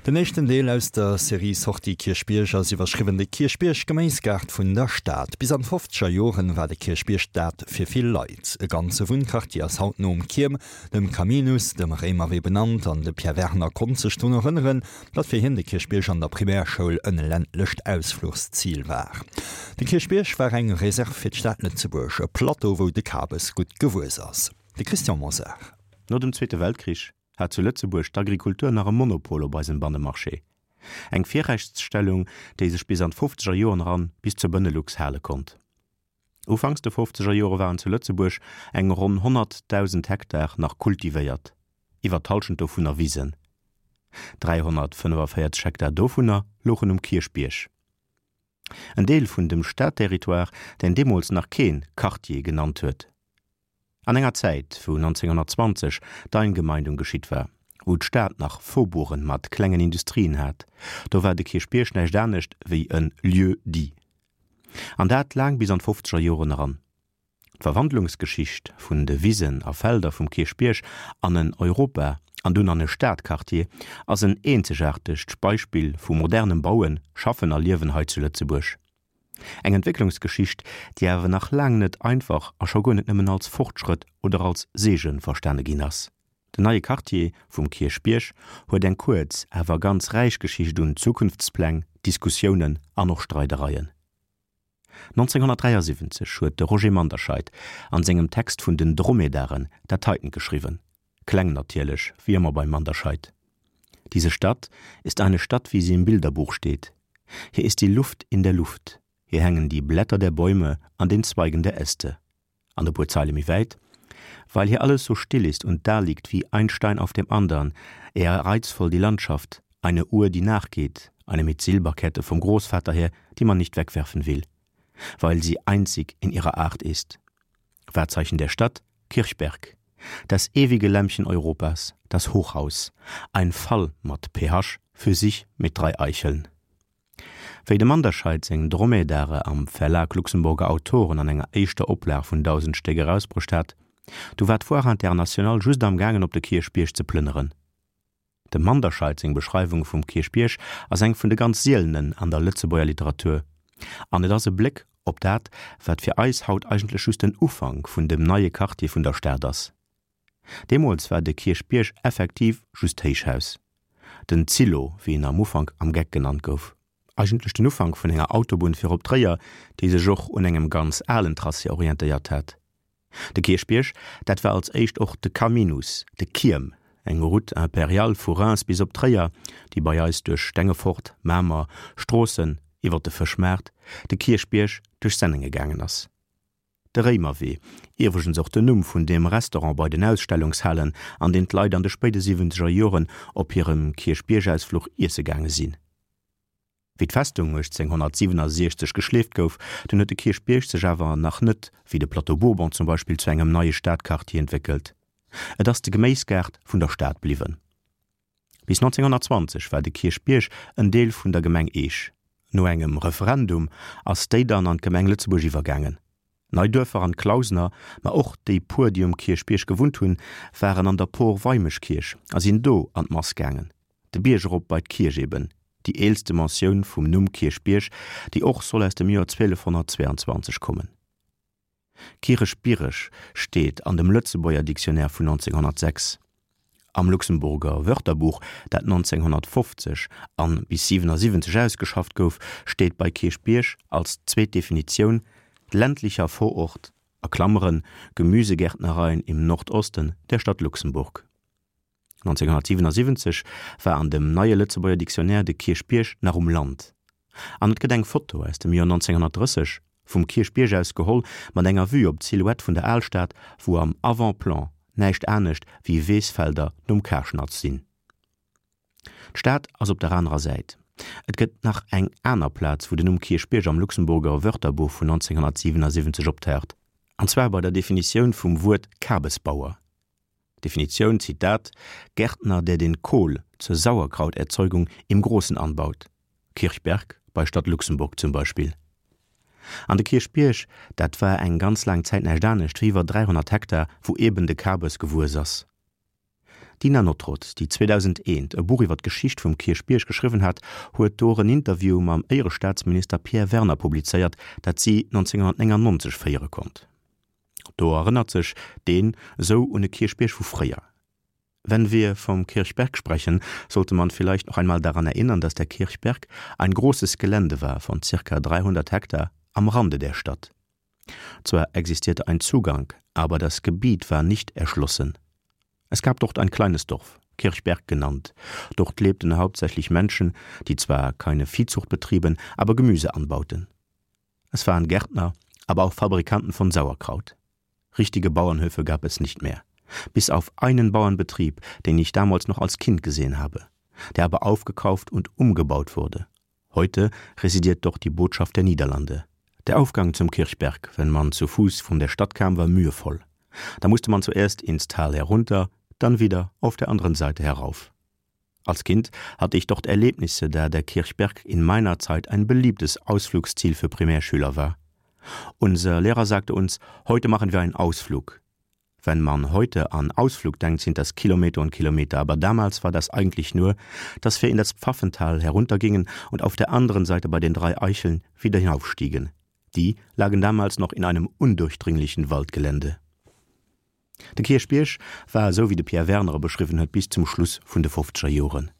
Den éischten Deel aus der Serie Sortie Kierchbierg ass iwwerschriwwen De Kierchbierg, Geméisgaart vun der Stad. Bis an d'fofzeger Joren war de Kierchbierg dat fir vill Leit. E ganze Wunnquartier ass haut nom Kierm, dem Caminus, dem Réimerwee benannt an de Pierre Werner konnt sech drun erënneren, datt fir hien de Kierchbierg an der Primärschoul en ländlecht Ausfluchszil war. De Kierchbierg war eng Reserve fir d'Stad Lëtzebuerg, e Plateau wou de Kabes gutt gewuess ass. De Christian Mosar. No dem Zweete Weltkrich hat zu Lëtzebuerg d'Agrikultur nach e Monopol op eisem Bannemarché. Eng Virrechtsstellung, déi sech bis an d'fofzeger Joren eran bis zur Benelux hale konnt. Ufanks de fofzeger Jore waren zu Lëtzebuerg eng ronn 100.000 Hektar nach kultivéiert, iwwer d'Hallschent dovunner Wisen. 345 Hektar dovunner louchen um Kierchbierg. En Deel vun dem Stadterritoire, deen deemools nach kee Quartier genannt huet. An enger Zäit, wou 1920 d'Eingemeindung geschitt war, wou d'Stad nach Faubourgen mat klengen Industrien hat, do war de Kierchbierg näischt anescht wéi e Lieu-dit. An dat laang bis an d'fofzeger Joren eran. D'Verwandlungsgeschicht vun de Wisen a Felder vum Kierchbierg an en Europa an dunn an e Stadquartier ass en eenzegaartegt Beispill vu modernem Bauen, Schaffen a Liewen hei zu Lëtzebuerg. Eng Entwécklungsgeschicht, déi awer nach laang net einfach a scho guer net nëmmen als Fortschrëtt oder als Seege verstane ginn ass. Den neie Quartier vum Kierchbierg huet eng kuerz, awer ganz räich Geschicht un Zukunftspläng, Diskussiounen an och Streidereien. 1973 huet de Roger Manderscheid an sengem Text vun den Dromedaren dat heiten geschriwwen, kleng natierlech, wéi ëmmer beim Manderscheid, Diese Stadt ist eine Stadt, wie sie im Bilderbuch steht. Hier ist die Luft in der Luft, hier hängen die Blätter der Bäume an den Zweigen der Äste. An e puer Zeile méi wäit, Weil hier alles so still ist und daliegt wie ein Stein auf dem andern, eher reizvoll die Landschaft, eine Uhr, die nachgeht, eine mit Silberkette vom Großvater her, die man nicht wegwerfen will, weil sie einzig in ihrer Art ist. Wahrzeichen der Stadt, Kirchberg. Das ewige Lämpchen Europas, das Hochhaus. Ein Fall mat PH für sich mit drei Eicheln. Wéi dem Manderscheid seng Dromedare am Verlag Luxemburger Autoren an enger éischter Oplag vun 1.000 Stéck erausbruecht hat, du war d'Foire Internationale just am gaangen op de Kierchbierg ze plënneren. Dem Manderscheid seng Beschreiwung vum Kierchbierg ass eng vun de ganz sielenen an der Lëtzebuerger Literatur, an et ass e Bléck op dat, wat fir eis haut eigentlech just den Ufank vun dem neie Quartier vun der Stad ass. Deemools war de Kierchbierg effektiv just d'Héichhaus, den Zillo, wéi en am Ufank am Geck genannt gouf. Eigentlech den Ufank vun enger Autobunn fir op Tréier, déi sech och un engem ganz alen Tracé orientéiert hat. De Kierchbierg, dat war als éischt och de Caminus, de Kierm, eng Route impériale vu Reims bis op Tréier, déi bei eis duerch Stengefort, Mamer, Stroossen, iwwer de Fëschmaart, de Kierchbierg, duerch Sennenge gaangen ass. De Réimerwee, iwwregens och den Numm vun deem Restaurant bei den Ausstellungshalen, an deen d'Leit an de spéide siwwenzeger Joren op hirem Kierchbiergausfluch iesse gaange sinn. Wéi d'Festung 1867 geschleeft gouf, dunn huet de Kierchbierg sech awer nach net, wéi de Plateau Bourbon zum Beispill, zu engem neie Stadquartier entwéckelt. Et ass de Geméisgaart vun der Stad bliwwen. Bis 1920 war de Kierchbierg en Deel vun der Gemeng Eech. No engem Referendum ass déi dann an d'Gemeng Lëtzebuerg iwwergaangen. D'Neiduerfer an d'Clausener, ma och déi puer, déi um Kierchbierg gewunnt hunn, waren an der Por Weimeschkierch a sinn do an d'Mass gaangen. De Bierg erop bei d'Kierch eben, déi eelste Mentioun vum Numm Kierchbierg, déi och soll aus dem Joer 1222 kommen. Kireschbiereg steet an dem Lëtzebuerger Dictionnaire vun 1906. Am Luxemburger Wörterbuch, dat 1950 an bis 77 ausgeschafft gouf, steet bei Kierchbierg als zweet Definitioun, ländlicher Vorort, a Klammeren, Gemüsegärtnereien im Nordosten der Stadt Luxemburg. 1977 war an dem neie Lëtzebuerger Dictionnaire de Kierchbierg nach um Land. An et gëtt eng Foto aus dem Joer 1930, vum Kierchbierg aus geholl, mat enger Vue op d'Silhouette vun der Alstad, wou am Avant-plan näischt anescht wéi Weesfelder nom Karschnatz sinn. D'Stad ass op der anerer Säit. Et gëtt nach eng aner Plaz, wou den Numm Kierchbierg am Luxemburger Wörterbuch vun 1977 optaucht, an zwar bei der Definitioun vum Wuert Kabesbauer. Definitioun, Zitat, Gärtner, der den Kohl zur Sauerkrauterzeugung im Großen anbaut, Kirchberg bei Stadt Luxemburg zum Beispiel. An de Kierchbierg, dat war eng ganz laang Zäit näischt anescht wéi iwwer 300 Hektar, wou eben de Kabes gewuess ass. D'Dina Nottrott, déi 2001 e Buch iwwer d'Geschicht vum Kierchbierg geschriwwen hat, huet do och en Interview mam Éierestaatsminister Pierre Werner publizéiert, dat si 1999 féiere konnt. Do erënnert sech deen esou un e Kierchbierg vu fréier. Wenn wir vom Kirchberg sprechen, sollte man vielleicht noch einmal daran erinnern, dass der Kirchberg ein großes Gelände war von ca. 300 Hektar am Rande der Stadt. Zwar existierte ein Zugang, aber das Gebiet war nicht erschlossen. Es gab dort ein kleines Dorf, Kirchberg genannt. Dort lebten hauptsächlich Menschen, die zwar keine Viehzucht betrieben, aber Gemüse anbauten. Es waren Gärtner, aber auch Fabrikanten von Sauerkraut. Richtige Bauernhöfe gab es nicht mehr. Bis auf einen Bauernbetrieb, den ich damals noch als Kind gesehen habe, der aber aufgekauft und umgebaut wurde. Heute residiert dort die Botschaft der Niederlande. Der Aufgang zum Kirchberg, wenn man zu Fuß von der Stadt kam, war mühevoll. Da musste man zuerst ins Tal herunter, dann wieder auf der anderen Seite herauf. Als Kind hatte ich dort Erlebnisse, da der Kirchberg in meiner Zeit ein beliebtes Ausflugsziel für Primärschüler war. Unser Lehrer sagte uns: „Heute machen wir einen Ausflug. Wenn man heute an Ausflug denkt, sind das Kilometer und Kilometer, aber damals war das eigentlich nur, dass wir in das Pfaffental heruntergingen und auf der anderen Seite bei den drei Eicheln wieder hinaufstiegen. Die lagen damals noch in einem undurchdringlichen Waldgelände. De Kierchbierg war esou wéi de Pierre Werner e beschriwwen huet bis zum Schluss vun de fofzeger Joren.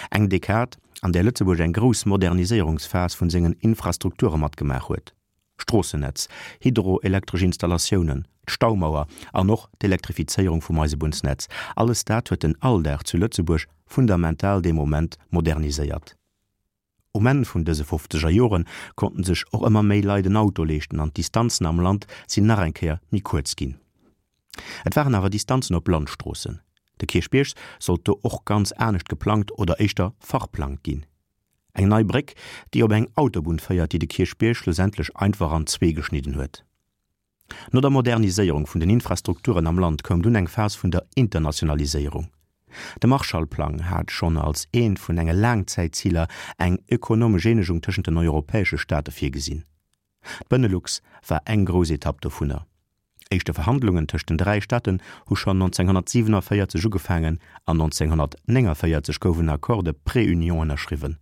Eng Dekad, an där Lëtzebuerg eng grouss Moderniséierungsphas vun sengen Infrastrukture matgemaach huet, Stroossennetz, hydroelektresch Installatiounen, d'Staumauer an och d'Elektrifizéierung vum Eisebunnsnetz, alles dat huet den Alldag zu Lëtzebuerg fundamental dee Moment moderniséiert. Um Enn vun dëse fofzeger Jore konnten sech och ëmmer méi Leit en Auto leeschten an d'Distanzen am Land sinn nach eng Kéier méi kuerz ginn. Et waren awer Distanzen op Landstroossen. De Kierchbierg sollt do och ganz anescht geplangt oder éischter verplangt ginn. Eng nei Bréck, déi op eng Autobunn féiert, déi de Kierchbierg schlussendlech einfach an zwee geschnidden huet. No der Moderniséierung vun den Infrastrukturen am Land koum dunn eng Phas vun der Internationaliséierung. De Marshallplang hat schonn als eent vun enge Laangzäitziler eng ökonomesch Eenegung tëschent den europäesche Staate virgesinn. D'Benelux war eng grouss Etapp dovunner. Éischte Verhandlungen tëscht den 3 Staaten hu schonn 1947 ugefaangen an 1949 gouf en Accord de préunion ënnerschriwwen.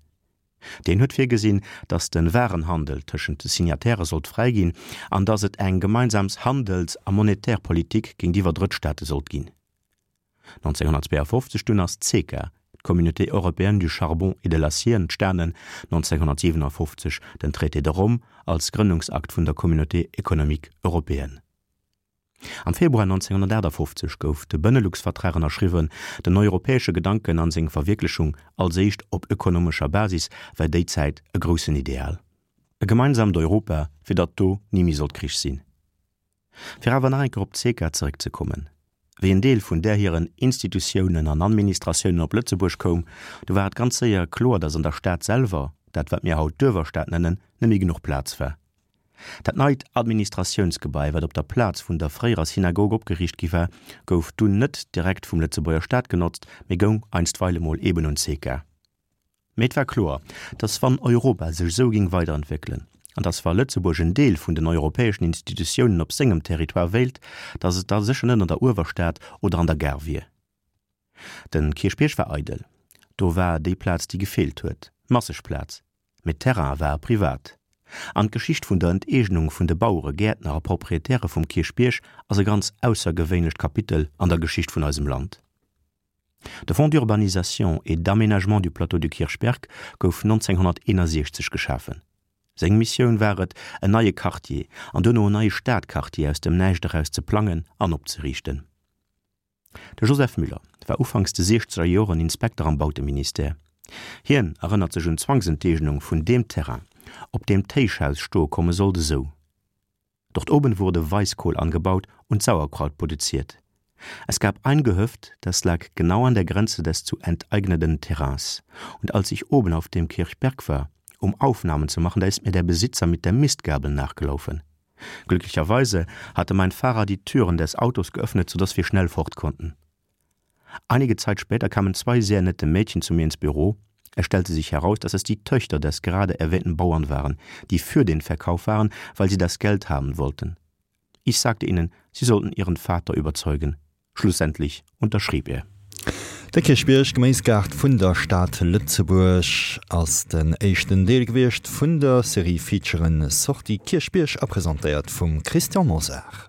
Deen huet virgesinn, datt de Warenhandel tëschent de Signatairë sollt fräi ginn an datt et eng gemeinsams Handels a monetär Politik géintiwwer Drëttstaate sollt ginn. 1952 dunn ass d'CECA, d'Communauté européenne du charbon et de l'acier, entstanen, 1957 den Traité de Rome als Grënnungsakt vun der Communauté économique européenne. Am Februar 1958 gouf de Benelux-Vertrag ënnerschriwwen. Den europäesche Gedanken an seng Verwierklechung, als éischt op ökonomescher Basis, war déi Zäit e groussen Ideal. E gemeinsamt Europa, fir datt do ni méi sollt Krich sinn. Fir awer nach eng Kéier op d'CECA zeréckzekommen, Wéi en Deel vun där hiren Institutiounen an Administratiounen op Lëtzebuerg koum, du war et ganz séier kloer, datt an der Stad selwer, dat wat mir haut d'Uewerstad nennen, net méi genuch Plaz war. Dat neit Administratiounsgebai, wat op der Plaz vun der fréierer Synagog opgeriicht gi war, gouf dunn net direkt vum Lëtzebuerger Staat genotzt, mee goung einstweile mol eben un d'SECA. Mee et war kloer, datt wann Europa sech esou géing weiderentwéckelen, an datt wa Lëtzebuerg en Deel vun den europäeschen Institutiounen op sengem Territoire wéilt, datt et da sécher net an der Uewerstad oder an der Gare wier. Den Kierchbierg war eidel. Do war déi Plaz, déi gefeelt huet. Masseg Plaz. Mee d'Terraine ware privat. An d'Geschicht vun der Enteegnung vun de Bauere, Gäertner a Proprietäre vum Kierchbierg ass e ganz aussergewéinlecht Kapitel an der Geschicht vun eisem Land. De Fonds d'urbanisation et d'aménagement du plateau du Kirchberg gouf 1961 geschafen. Seng Missioun war et, en neie Quartier an duerno en neie Stadquartier aus dem Näischt eraus ze plangen an opzeriichten. De Joseph Müller war ufanks de siechzeger Joren Inspekter am Bauteministère. Hien erënnert sech un d'Zwangsenteegnung vun deem Terrain, op deem d'Héichhaus stoe komme sollt, esou, Dort oben wurde Weißkohl angebaut und Sauerkraut produziert. Es gab ein Gehöft, das lag genau an der Grenze des zu enteignenden Terrains. Und als ich oben auf dem Kirchberg war, um Aufnahmen zu machen, da ist mir der Besitzer mit der Mistgabel nachgelaufen. Glücklicherweise hatte mein Fahrer die Türen des Autos geöffnet, sodass wir schnell fort konnten. Einige Zeit später kamen zwei sehr nette Mädchen zu mir ins Büro. Es stellte sich heraus, dass es die Töchter des gerade erwähnten Bauern waren, die für den Verkauf waren, weil sie das Geld haben wollten. Ich sagte ihnen, sie sollten ihren Vater überzeugen. Schlussendlich unterschrieb er. De Kierchbierg, Geméisgaart vun der Stad Lëtzebuerg, ass den éischten Deel gewiescht vun der Serie Featuren Sortie Kierchbierg a presentéiert vum Christian Mosar.